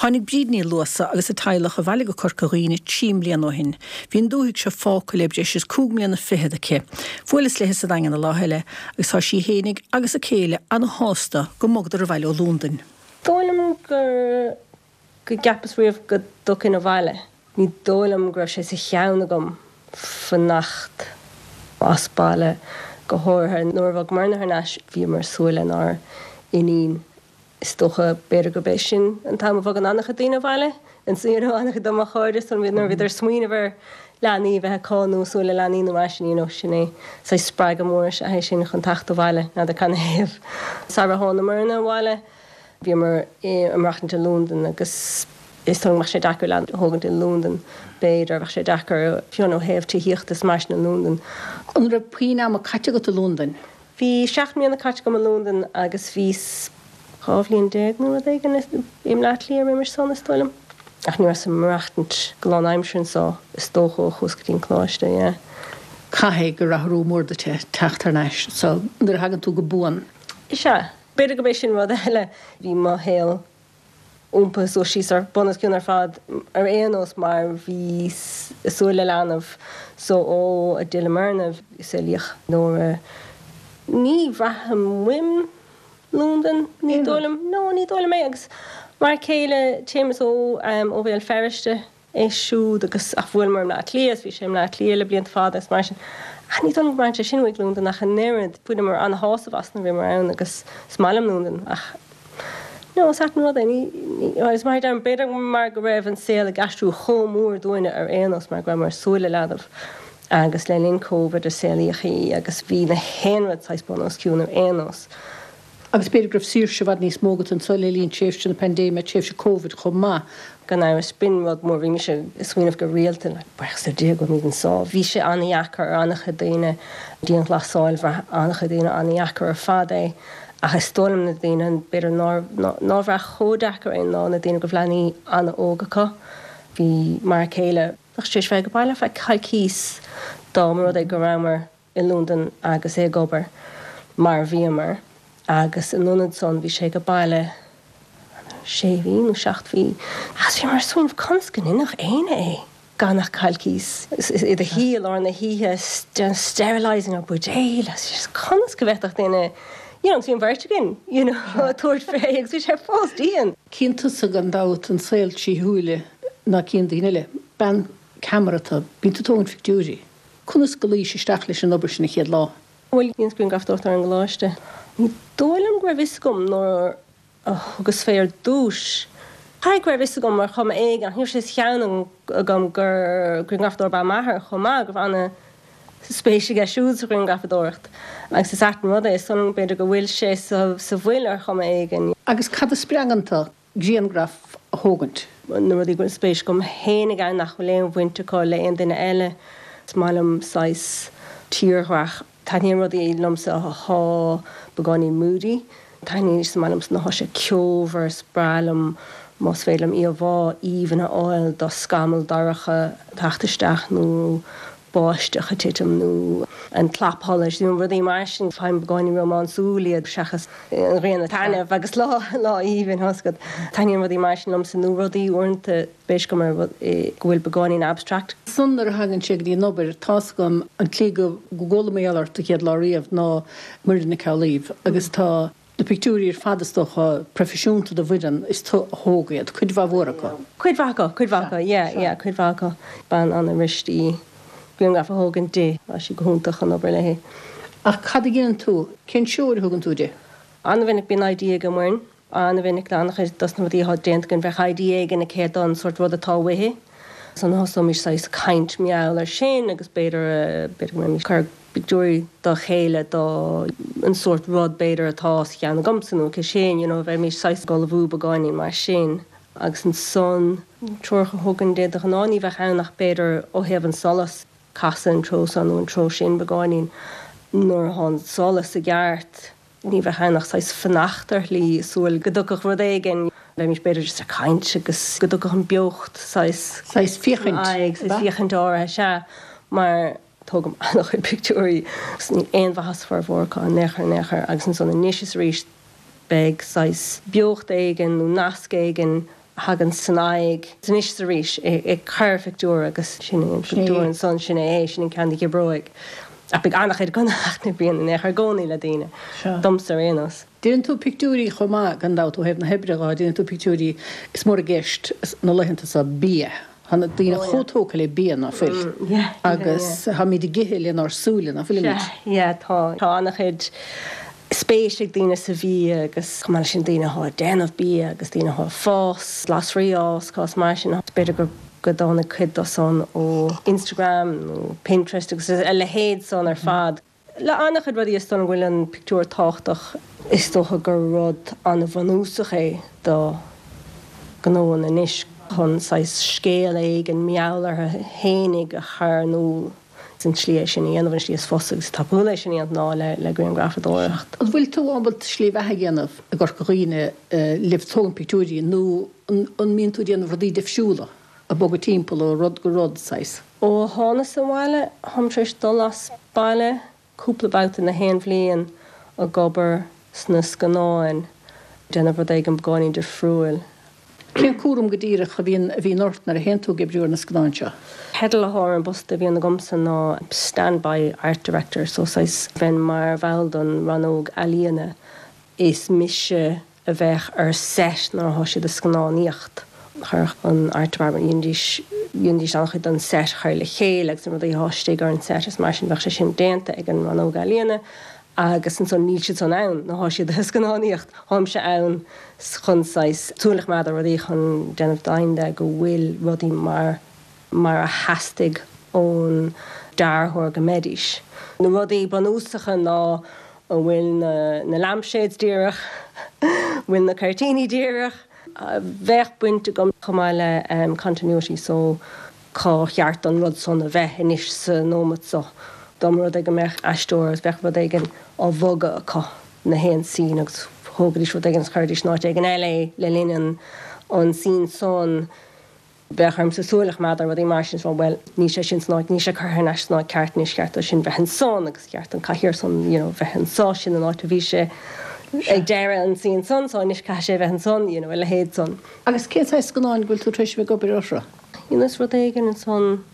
Tháinig Bríd Ní Luasa agus a teaghlach abhaile go Corca Dhuibhne 3 mbliana ó shin. Bhí an dúthaigh seo fágtha le breis is cúig mbliana fichead aici. Bhuaileas léi sa Daingean an lá eile agus tá sí fhéinig agus a céile ana-shásta go mbogadar abhaile ó Londain. Dóigh liom gur go gceapas riamh go dtiocfainn abhaile. Ní dóigh liom go raibh sé sa cheann agam fanacht as baile, go háirithe nuair a bhog Muireann thar n-ais, bhíomar ag súil lenár n-iníon. Is dócha, b'fhéidir gurb é sin an t-am a bhogann an-chuid daoine abhaile, you know, an-chuid de mo chairde, so nuair a bhíodar ag smaoineamh ar leanaí a bheith acu nó ag súil le leanaí nó mar sin, you know, sin é saghas spreagadh mór is ea é sin chun teacht abhaile, n'fheadar canathaobh. Sara thánamairne abhaile, Bhíomar ag maireachtaint i Londain agus is dóigh go mbeadh sé deacair leanbh a thógaint i Londain, b'fhéidir, bheadh sé deacair fiú ó thaobh tithíochta is mar sin i Londain. An raibh puinn ama caite agat i Londain? Bhí 7 mbliana caite agam i Londain agus bhí 12 bhliain nó rud éigin i mBleá Cliath roimis san, is dóigh liom. Ach ní rabhas ag maireachtaint go lánaimseartha anso, is dócha, ó chuas go dtí an coláiste, yeah. Caithfidh gur athrú mór duit é teacht thar n-ais anso nuair a thagann tú go buan. Is ea. B'fhéidir gurb é sin rud eile. Bhí mo shaol iompaithe suas síos ar bun os cionn ar fad ar aon nós mar bhíos ag súil le leanbh so ó a d'fhilleamarna saolaíodh Nóra. Ní bhraithim uaim Londain, ní dóigh liom. No, ní dóigh liom é agus m'fhear céile Séamus ó ó Bhéal Feirste. é siúd agus ach bhuaileamar i mBleá Cliath is bhí sé i mBleá Cliath le blianta fada agus mar sin. Ach ní dóigh liom go mbraitheann sé sin uaidh Londain ach an oiread. Bhaineamar an-shásamh as nuair a bhíomar ann agus is maith liom Londain ach no, is ait an rud é. Ní, ní, agus mar a deirim, b'fhéidir mar go raibh an saol ag aistriú chomh mór dúinne ar aon nós mar go rabhamar ag súil le leanbh agus le linn Covid a saolaíodh í agus bhí na haon rud saghas bun os cionn ar aon nós. Agus b'fhéidir go raibh saoirse i bhfad níos mó agat anso le linn tréimhse na paindéime, tréimhse Covid chomh maith. Gan amhras, b'in rud mór. Bhí mise ag smaoineamh go rialta, like, buíochas le Dia go bhfuilimid anso. Bhí sé an-dheacair ar an-chuid daoine, dianghlasáil, bhraith an-chuid daoine an-dheacair ar fad é. Ach is dóigh liom na daoine, b'fhéidir nár, nár bhraith chomh deacair é ná na daoine go raibh leanaí an-óg acu. Bhí m'fhear céile, bheadh sé tar éis bheith ag baile ar feadh coicíos dá mba rud é go rabhamar i Londain agus é ag obair mar a bhíomar agus in ionad san bhí sé ag baile sé mhí nó 7 mhí agus bhíomar ag smaoineamh conas go ndéanfadh éinne é gan ach coicís i do shuí i lár na hoíche sterilising ar buidéil agus conas go bhféadfadh duine you know agus bhí an bheirt againn you know ag tabhairt fé agus bhí sé fós dian. Cíonn tusa gan dabht an saol trí shúile ná cíonn daoine eile. Bean ceamara tú, bíonn tú ag tógaint pictiúirí. Conas go luís isteach leis an obair sin an chéad lá? Bhuel, dheineas grianghrafadóireacht ar an gcoláiste. Ní dóigh liom go raibh fhios agam nuair a thugas fé ar dtúis. Caithfidh go raibh fhios agam ar chuma éigin, ach ní raibh sé sa cheann agam gur grianghrafadóir ab ea m'athair chomh maith, go raibh ana spéis aige siúd sa ghrianghrafadóireacht. Agus is ait an rud é, is dóigh liom b'fhéidir go bhfuil sé sa bhfuil ar chuma éigin. Agus cad a spreagann tú? grianghraf a thógaint. Na rudaí go bhfuil spéis agam fhéinig ann nach bhfuil aon bhaint acu le aon duine eile. Is maith liom saghas tírdhreach. Taitníonn rudaí liomsa athá beagáinín moody. Taitníonn, is maith liomsa nuair athá sé ceomhar, is breá liom más féidir liom íomhá aoibhinn a fháil de scamall dorcha ag teacht isteach nó báisteach ag titim nó an clapsholais nó rudaí mar sin. Faighim beagáinín rómánsúil iad seachas an ghrian ag taitneamh agus lá lá aoibhinn, tá 'fhios agat. Taitníonn rudaí mar sin liomsa nó rudaí uaireanta spéis agam ar rud go bhfuil beagáinín abstract. Ansan nuair a thagann sé go dtí an obair, tá's agam an tslí go gcuala mé ort an chéad lá riamh ná Muireann Nic Amhlaoibh agus tá Na pictiúirí ar fad is dócha, proifisiúnta do Mhuireann, is tú a thóg iad, cuid mhaith mhór acu. Cuid mhaith acu, cuid mhaith acu, yeah, yeah, cuid mhaith acu. Bean an-fhuirist í grianghraf a thógaint di, tá sí go hiontach chun obair léi. Ach cad a dhéanann tú? Cén treoir a thugann tú di? An-mhinic bíonn idea ag Muireann, an-mhinic le an-chuid dos na rudaí atá déanta againn, bheadh idea éigin aici don sórt rud atá uaithi. Ansan thosóimis saghas caint mar gheall ar sin agus b'fhéidir, b'fhéidir go mbeimís ag cur pictiúirí dá chéile do an sórt rud b'fhéidir atá sa cheann agamsa nó aici sin, you know, bheimis saghas ag ullmhú beagáinín mar sin agus ansan treoracha a thugaim di de ghnáth ní bheadh ann ach b'fhéidir ó thaobh an solas, casadh an treo seo nó an treo sin beagáinín nuair atá an solas i gceart. Ní bheadh ann ach saghas fanacht ar shlí, súil go dtiocfadh rud éigin. Bheimis b'fhéidir just ag caint agus go dtiocfadh an beocht saghas. Saghas féachaint, aghaidh, saghas féachaint áirithe, sea. Mar tógaim an-chuid pictiúirí agus níl aon mhaitheas formhór acu in aon chor, in aon chor. Agus ansan anois is arís beidh saghas beocht éigin nó nasc éigin. a thagann san aghaidh anois is arís ag cur phictiúr agus sin é an pictiúr ansan, sin é é, sin an ceann a dh'oibreoidh. Ach beidh an-chuid gnóthach na bíonn in aon chor i gcónaí le daoine, domsa ar aon nós. Déanann tú pictiúirí chomh maith, gan dabht, ó thaobh na hoibre dhó, déanann tú pictiúirí, is mór i gceist na laethanta seo bia. Tá na daoine chomh tógtha le bia, ná fuil? Agus táimid ag ithe lenár súile, ná fuilimid? Sea, yeah, tá. Tá an-chuid spéis ag daoine sa bhia agus chomh maith leis sin daoine atá ag déanamh bia agus daoine atá ag fás glasraí a fhás, cás mar sin. B'fhéidir go go dtáinig cuid dó san ó Instagram nó Pinterest agus a leithéid san ar fad. Le an-chuid rudaí is dóigh liom go bhfuil an pictiúr tábhachtach. Is dócha gur rud an-bhunúsach é do ghnóanna anois chun saghas scéal éigin mar gheall orthu fhéinig a chur in iúl. Is an tslí é sin a dhéanamh, an tslí is fusa agus is tapúla é sin a dhéanamh ná le grianghrafadóireacht. An bhfuil tú ábalta slí bheatha a dhéanamh i gCorca Dhuibhne le tógaint pictiúirí nó an mbíonn tú ag déanamh rudaí difriúla, ag bogadh timpeall ó rud go rud, saghas? Ó thánas abhaile, táim tar éis dul as baile cúpla babhta na haon bhliain ag obair sna scannáin, déanamh rud éigin beagáinín difriúil. Cén cúram go díreach a bhíonn a bhíonn ort nuair a théann tú ag oibriú ar na scannáin seo? Teideal atá ar an bpost a bhíonn agamsa ná Standby Art Director, so saghas bheinn mar bhall don rannóg ealaíona. Is mise a bheadh ar set nuair atá siad ag scannánaíocht. Chuirfeadh an Art Department, dhéanfaidís, dhéanfaidís an-chuid den set a chur le chéile agus na rudaí atá istigh ar an set is mar sin bheadh sé sin déanta ag an rannóg ealaíona agus ansan níl siad san ann nuair atá siad ag scannánaíocht. Táimse ann chun saghas súil a choimeád ar rudaí chun déanamh deimhin de go bhfuil rudaí mar mar a theastaigh ón dearthóir go mbeidís. Na rudaí bunúsacha ná an bhfuil na na lampshades díreach, an bhfuil na cuirtíní díreach. Bheadh baint agam chomh maith le continuity so cá cheart don rud san a bheith anois sa nóimeat so. Dá mba rud é go mbeadh aisteoir agus bheadh rud éigin á bhogadh acu na haon scene agus thógaidís rud éigin agus chuiridís in áit éigin eile é le linn an an scene san, Bheadh ormsa súil a choimeád ar rudaí mar sin is rá bhuel, níl sé sin san áit, níl sé curtha thar n-ais san áit ceart anois, cheart dó sin bheith ansan agus cheart an cathaoir san, you know, bheith anso, sin an áit a bhí sé ag deireadh an scene san, so anois caithfidh sé bheith ansan, you know, a leithéid san. Agus cén saghas scannáin go bhfuil tú tar éis a bheith ag obair orthu? Dheineas rud éigin ansan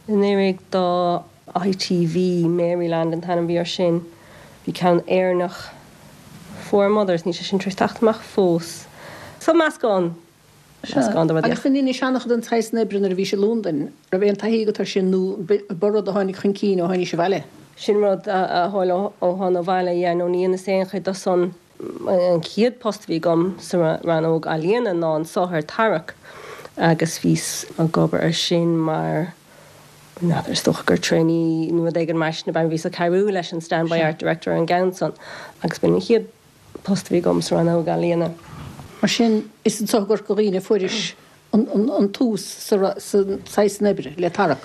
anuraidh do ITV, Maryland an t-ainm a bhí air sin, bhí ceann Éireannach, Four Mothers, níl sé sin tar éis teacht amach fós. So meascán Sea. Agus an ndeinis an-chuid den tsaghas san oibre nuair a bhís i Londain? Raibh aon taithí agat air sin nó ba rud a tháinig chun cinn ó tháinís abhaile? Sin rud a tharla ó thána abhaile, yeah, nó ní dheineas aon chuid de san. An chéad post a bhí agam sa rannóg ealaíona ná anso ar Tarrac agus bhíos ag obair ar sin mar, n'fheadar, is dócha gur trainee nó rud éigin mar sin ab ea, bhíos ag cabhrú leis an standby art director ar an gceann san agus b'in an chéad post a bhí agam sa rannóg ealaíona. Mar sin, is anso i gCorca Dhuibhne a fuairis an tús sa saghas san oibre, le Tarrac.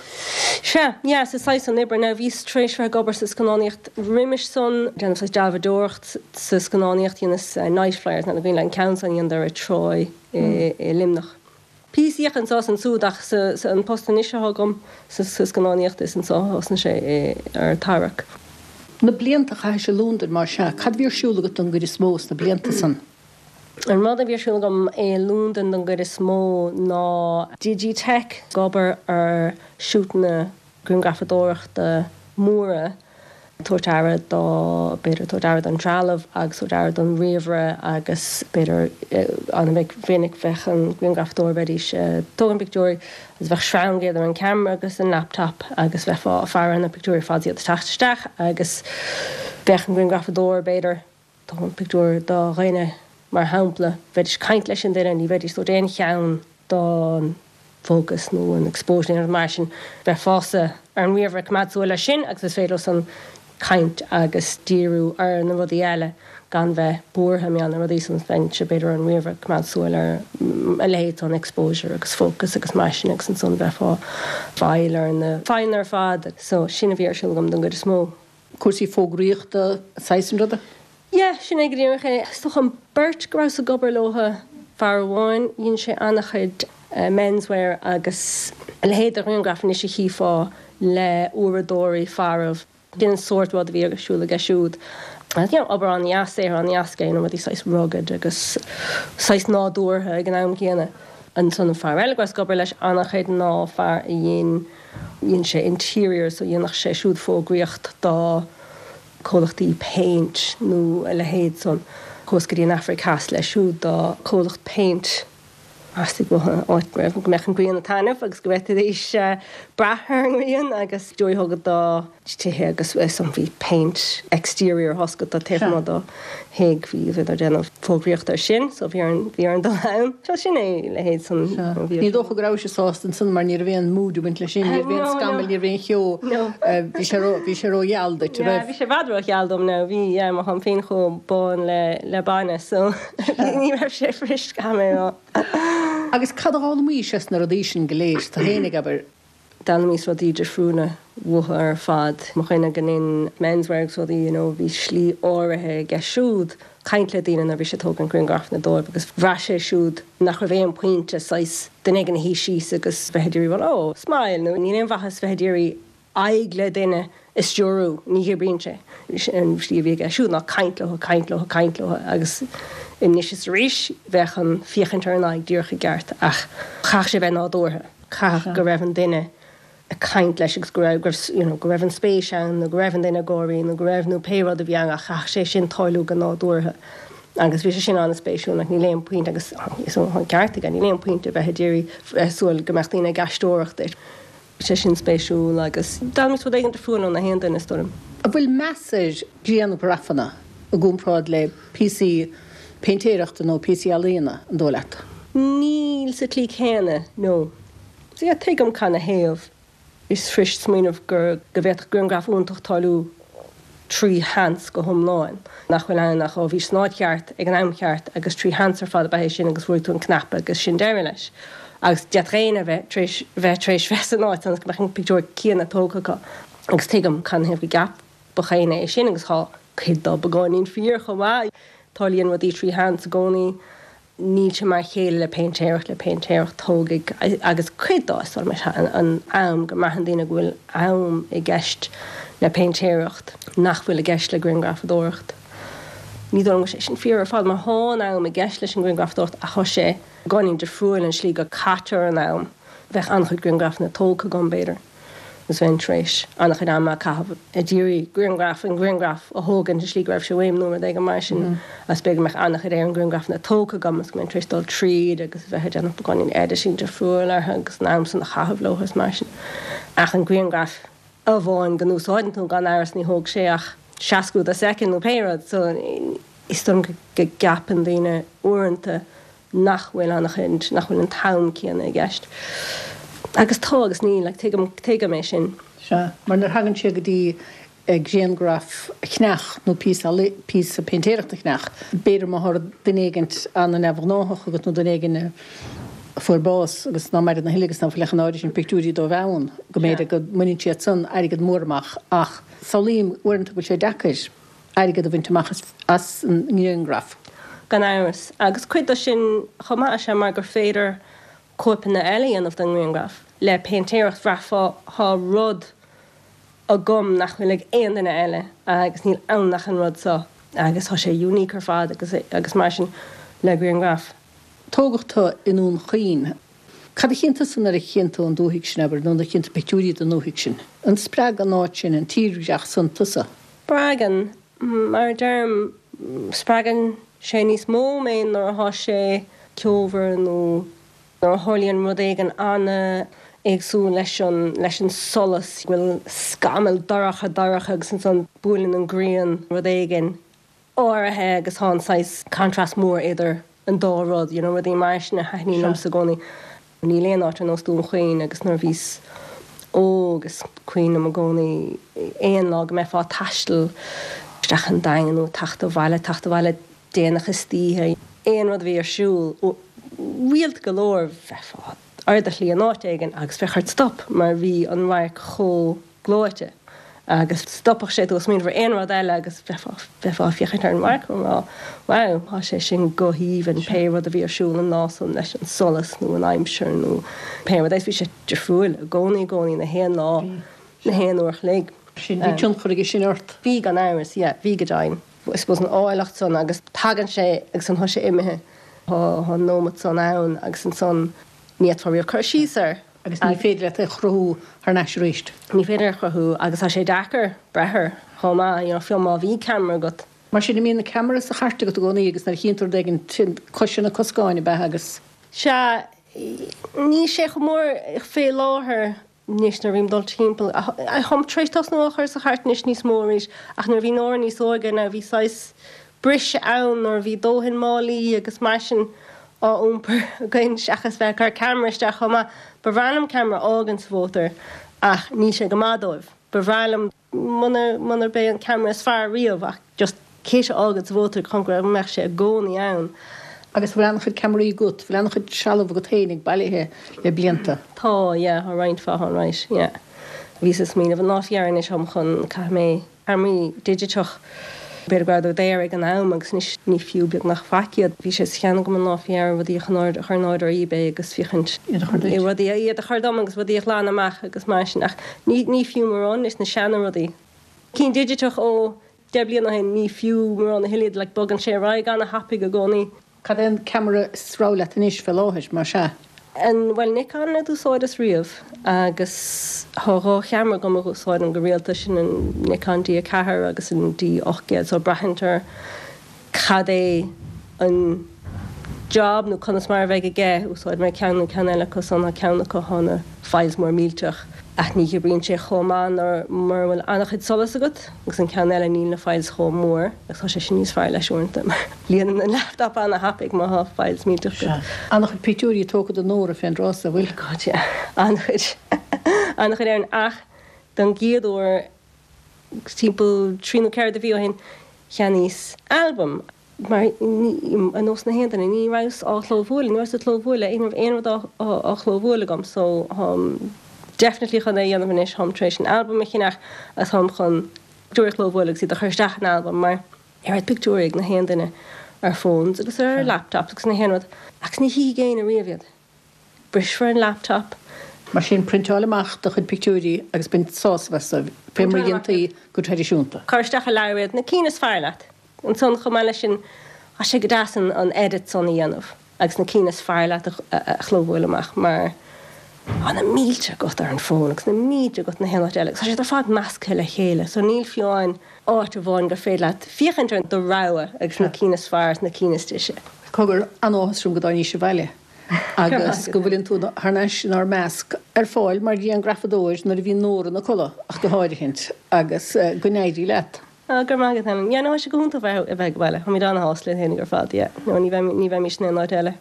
Sea, yeah, sa saghas san oibre. Now, bhíos tar éis bheith ag obair sa scannánaíocht roimis san, déanamh saghas dealbhadóireacht sa scannánaíocht, dheineas Nightflyers, n'fheadar an cuimhin leat an ceann san a dheineadar i Troy i Luimneach. Píosaíocht anso is ansúd ach sa an post anois atá agam sa scannánaíocht is anso a thosnaigh sé ar Tarrac. Na blianta a chaithis i Londain mar sea, cad a bhí ar siúl agat don gcuid is mó sna blianta san? An rud a bhí ar siúl agam i Londain don gcuid is mó ná Digitech, ag obair ar shútanna grianghrafadóireachta móra, tabhairt aire dó, b'fhéidir tabhairt aire don trealamh agus tabhairt aire don ríomhaire agus b'fhéidir an-mhinic bheadh an grianghrafadóir, bheidís ag tógaint pictiúirí agus bheadh sreang idir an ceamara agus an laptop agus bheifeá ag faire ar na pictiúirí ar fad is iad ag teacht isteach agus bheadh an grianghrafadóir b'fhéidir tógaint pictiúr do dhuine, mar shampla, bheidís ag caint leis an duine, ní bheidís ag tabhairt aon cheann don focus nó an exposure nó aon rud mar sin, bheifeása ar an ríomhaire ag coimeád súil air sin agus is féidir leosan caint agus díriú ar na rudaí eile gan bheith buartha mar gheall ar na rudaí san, bheinnse b'fhéidir ar an ríomhaire ag coimeád súil ar a leithéid san exposure agus focus agus mar sin agus ansan bheifeá ag fáil ar na fadhbanna ar fad. So sin a bhí ar siúl agam don gcuid is mó. Cúrsaí fógraíochta, saghas an ruda? Yeah, sin é go díreach é. Is dócha an beirt go rabhas ag obair leo, fear amháin, dhein sé an-chuid menswear agus a leithéid de ghrianghraif anois a chífeá le uaireadóirí farbh. Sin an sórt rud a bhí ar siúl aige siúd. You know, obair an-dheas, saothar an-dheas aige, you know, rudaí saghas rugged agus saghas nádúrtha ag an am céanna. Ansan an fear eile go rabhas ag obair leis an-chuid ná fear a dhein, dhein sé interiors so dhéanadh sé siúd fógraíocht do comhlachtaí péint nó a leithéid san. Chuas go dtí an Afraic Theas leis siúd do comhlacht péint. Theastaigh uathu áit go raibh, go mbeadh an ghrian ag taitneamh agus go bhféadfaidís brath ar an ngrian agus pictiúirí a thógáil do tithe agus san bhí péint exterior thosca do taobh amuigh do thigh, bhí bhíodar ag déanamh fógraíocht ar sin so bhí orainn bhí orainn dul ann. So sin é a leithéid san bhí Ní dócha go rabhais sásta ansan mar ní raibh aon mood ag baint leis sin, ní raibh aon scamaill, ní raibh aon cheo, bhí sé ró bhí sé rógheal duit, an raibh? Yeah bhí sé i bhfad rógheal dom now, bhí yeah mar tháim féin chomh bán le le bainne so. Ní raibh sé fuirist, caithfidh mé a rá. Agus cad a d'fhoghlaimís as na rudaí sin go léir, tú fhéinig, abair? D'fhoghlaimíos rudaí difriúla uathu ar fad. Mo dhuine go ndein menswear agus rudaí, you know, bhí slí áirithe aige siúd caint le daoine nuair a bhí sé ag tógaint grianghrafanna dóibh agus bhraith sé siúd nach raibh aon pointe saghas duine éigin a shuí síos agus bheith ag iarraidh rá oh, smile nó níl aon mhaitheas bheith ag iarraidh aghaidh le duine a stiúrú, ní oibríonn sé. An slí a bhí aige siúd ná caint leo, caint leo, caint leo agus anois is arís bheadh an féachaint ar an aghaidh díreach i gceart ach chaithfeadh sé bheith nádúrtha, chaithfeadh go raibh an duine ag caint leis agus go raibh, go raibh, you know, go raibh an spéis ann nó go raibh an duine ag gáirí nó go raibh nó pé rud a bhí ann ach chaithfeadh sé sin tarlú go nádúrtha agus bhí sé sin an-spéisiúil like níl aon pointe agus is an ceart aige, níl aon pointe bheith ag iarraidh bheith ag súil go mbeadh daoine ag aisteoireacht duit. sé sin spéisiúil agus d'fhoghlaimíos rud éigin difriúil ó na haon duine, is dóigh liom. An bhfuil meas ar ghrianghrafanna i gcomparáid le píosaí péintéireachta nó píosaí ealaíona, an dóigh leat? Níl sa tslí chéanna, no. So yeah, tuigim canathaobh. Is fuirist smaoineamh gur, go bhféadfadh grianghraf iontach tarlú trí sheans go hiomlán, nach bhfuil ann ach ó bhís san áit cheart ag an am cheart agus trí sheans ar fad ab ea é sin agus bhrúigh tú an cnaipe agus sin deireadh leis. Agus d'fhéadfadh éinne a bheith tar éis bheith tar éis bheith san áit ionas go mbeadh an pictiúr céanna tógtha acu. Agus tuigim canathaobh go gceapfadh éinne é sin agus tá cuid dó beagáinín fíor chomh maith. Tarlaíonn rudaí trí sheans i gcónaí. Níl sé mar a chéile le péintéireacht, le péintéireacht tógfaidh, agus cuid dó is dóigh liom is ea an am, go mbraitheann daoine go bhfuil am i gceist le péintéireacht nach bhfuil i gceist le grianghrafadóireacht. Ní dóigh liom go bhfuil sé sin fíor ar fad mar thá an am i gceist leis an ngrianghrafadóireacht ach thá sé beagáinín difriúil an slí go caitear an am. Bheadh an-chuid grianghrafanna tógtha agam b'fhéidir. agus bheinn tar éis an-chuid ama a chaitheamh ag iarraidh grianghraf an grianghraf a thógaint i slí go raibh sé uaim nó rud éigin mar sin agus b'fhéidir go mbeadh an-chuid ar an ngrianghrafanna tógtha agam agus go mbeinn tar éis dul tríd agus a bheith ag déanamh beagáinín editing difriúil orthu agus an am san a chaitheamh leo is mar sin. Ach an grianghraf amháin go n-úsáideann tú gan amhras ní thóg sé ach seascú de soicind nó pé rud so is dóigh liom go gceapann daoine uaireanta nach bhfuil an-chuid, nach bhfuil an t-am céanna i gceist. Agus tá agus níl, like, tuigim, tuigim é sin. Sea, mar nuair a thagann sé go dtí grianghraf a cheannach nó píosa, píosa péintéireachta a cheannach, b'fhéidir má thá duine éigint an-neamhghnáthach agat nó duine éigin a fuair bás agus ná maireann a thuilleadh agus ná fuil ach an áirithe sin pictiúirí dóibh ann, go mb'fhéidir go mbaineann siad san airgead mór amach ach samhlaím uaireanta go bhfuil sé deacair. airgead a bhaint amach as an ngrianghraf. Gan amhras. Agus cuid de sin chomh maith is ea mar gur féidir cóipeanna eile a dhéanamh den ngrianghraf. Le péintéireacht bhraithfeá thá rud agam nach bhfuil ag aon duine eile agus níl ann ach an rud seo agus thá sé unique ar fad agus agus mar sin le grianghraf. Tógadh tu i nDún Chaoin. Cad a chíonn tusa nuair a chíonn tú an dúthaigh sin, abair, nó nuair a chíonn tú pictiúirí den ndúthaigh sin? An spreag an áit sin, an tírdhreach san tusa? Spreagann. Mar a deirim, spreagann sé níos mó mé nuair athá sé ceomhar nó nuair a tharlaíonn rud éigin an-éagsúil leis an, leis an solas, go bhfuil scamall dorcha dorcha agus ansan buaileann an ghrian rud éigin áirithe agus thá an saghas contrast mór idir an dá rud, you know, rudaí mar sin a thaitníonn liomsa i gcónaí. Níl aon áit ar nós Dún Chaoin agus nuair a bhíos óg is cuimhin liom i gcónaí aon lá go mbeifeá ag taisteal isteach an Daingean nó ag teacht abhaile, teacht abhaile déanach istoíche, aon rud a bhí ar siúl, rialta go leor bheifeá ar do shlí in áit éigin agus bheadh ort stop mar bhí an radharc chomh gleoite agus stopfadh sé tú ó smaoineamh ar aon rud eile agus bheifeá, bheifeá ag féachaint ar an radharc ag rá wow, tá sé sin go haoibhinn, pé rud a bhí ar siúl an lá san leis an solas nó an aimsir nó pé rud é, bhí sé difriúil i gcónaí, i gcónaí, na haon lá, na haon uair a chloig. Sin, bhí tionchar aige sin ort? Bhí gan amhras, yeah, bhí go deimhin. I suppose an áilleacht san agus tagann sé agus ansan tá sé imithe. Tá an nóimeat san ann agus ansan ní fhéadfá riamh cur síos air. Agus ní féidir leat é a chruthú thar n-ais arís. Ní féidir é a chruthú agus tá sé deacair breith air chomh maith, you know, fiú má bhí ceamara agat. Mar sin, an mbíonn an ceamara sa chairt agat i gcónaí agus nuair a chíonn tú rud éigin, cois na coscáin ab ea agus. Sea, níl sé chomh mór fé láthair Anois nuair a bhím ag dul timpeall, táim tar éis tosnú á chur sa chairt anois níos mó arís, ach nuair a bhí Nóra níos óige now bhí saghas briseadh ann nuair a bhí dóthain málaí agus mar sin á iompar againn seachas bheith ag cur ceamara isteach chomh maith. Ba bhreá liom ceamara a fhágaint sa mhótar ach níl sé go maith dóibh. Ba bhreá liom. Munarb é an ceamara is fearr riamh ach just kit a fhágaint sa mhótar chun go mbeadh sé i gcónaí ann. Agus bhfuil an-chuid ceamaraí agat, bhfuil an-chuid trealamh agat féinig bailithe le blianta? Tá, yeah, tá roinnt mhaith ann, right, yeah. Bhíos ag smaoineamh an lá faoi dheireadh anois táim chun, caithfidh mé ceamaraí digiteach, b'fhéidir go rabhadar daor ag an am agus anois ní fiú beagnach faic iad. Bhí sé sa cheann agam an lá faoi dheireadh rudaí a chur in airde ar eBay agus féachaint Iad a chur duit. rudaí, iad a chur dom agus rudaí a ghlanadh amach agus mar sin ach ní, ní fiú mórán anois na seana rudaí. Cinn digiteach ó 10 bliana ó shin, ní fiú mórán a thuilleadh iad, like bogann sé ar aghaidh ana-thapaidh i gcónaí. Cad é an ceamara is rogha leat anois fé láthair, más ea? An, bhuel Nikon a d'úsáideas riamh agus thá dhá cheamara agam a úsáidim go rialta, sin an Nikon D4 agus an D800 so braitheann ar cad é an job nó conas mar a bheidh aige, úsáidfidh mé ceann nó ceann eile acu san, tá ceann acu thá na files mór millteach ach ní oibríonn sé chomh maith nuair mura bhfuil an-chuid solais agat agus an ceann eile níl na files chomh mór agus tá sé sin níos fearr leis uaireanta mar líonann an laptop an-thapaidh má thá files millteach agat. Sea. An-chuid pictiúirí tógtha de Nóra fén dtráth so, bhfuil? God yeah. An-chuid. An-chuid Erin ach don gcéad uair timpeall trí nó ceithre de mhí ó shin cheannaíos albam Mar ar nós na haon duine, ní rabhas á chlóbhualadh, ní rabhas ag clóbhualadh, ní raibh aon rud á chlóbhualadh agam so táim definitely chun é a dhéanamh anois, táim tar éis an albam a cheannach agus táim chun pictiúirí a chlóbhualadh agus iad a chur isteach in albam mar oiread pictiúirí ag na haon duine ar phones agus ar laptops agus na haon rud agus ní chífidh éinne riamh iad. Brisfear an laptop. Mar sin, priontáil amach do chuid pictiúirí agus bain sásamh astu, fé mar a dhéantaí go traidisiúnta. Cuir isteach i leabhar iad, na cinn is fearr leat. Ansan, chomh maith leis sin, tá sé go deas an edit san a dhéanamh agus na cinn is fearr leat a chlóbhualadh amach mar tá na mílte agat ar an bhfón agus na mílte agat na haon áit eile agus tá siad ar fad measctha le chéile so níl fiú amháin áit amháin gur féidir leat féachaint ar do rogha agus na cinn is fearr is na cinn is deise. Cogar, an-áthas orm go dtáinís abhaile agus go bhfuileann tú thar n-ais inár measc, ar fáil mar ghrianghrafadóir nuair a bhíonn Nóra ina codladh ach go háirithint, agus go n-éirí leat. Ah, go raibh maith agat, Helen. Yeah, no, tá sé go hiontach bheith ag baile. Táimid an-shásta linn féinig ar fad, yeah. No, ní bheimís in aon áit eile.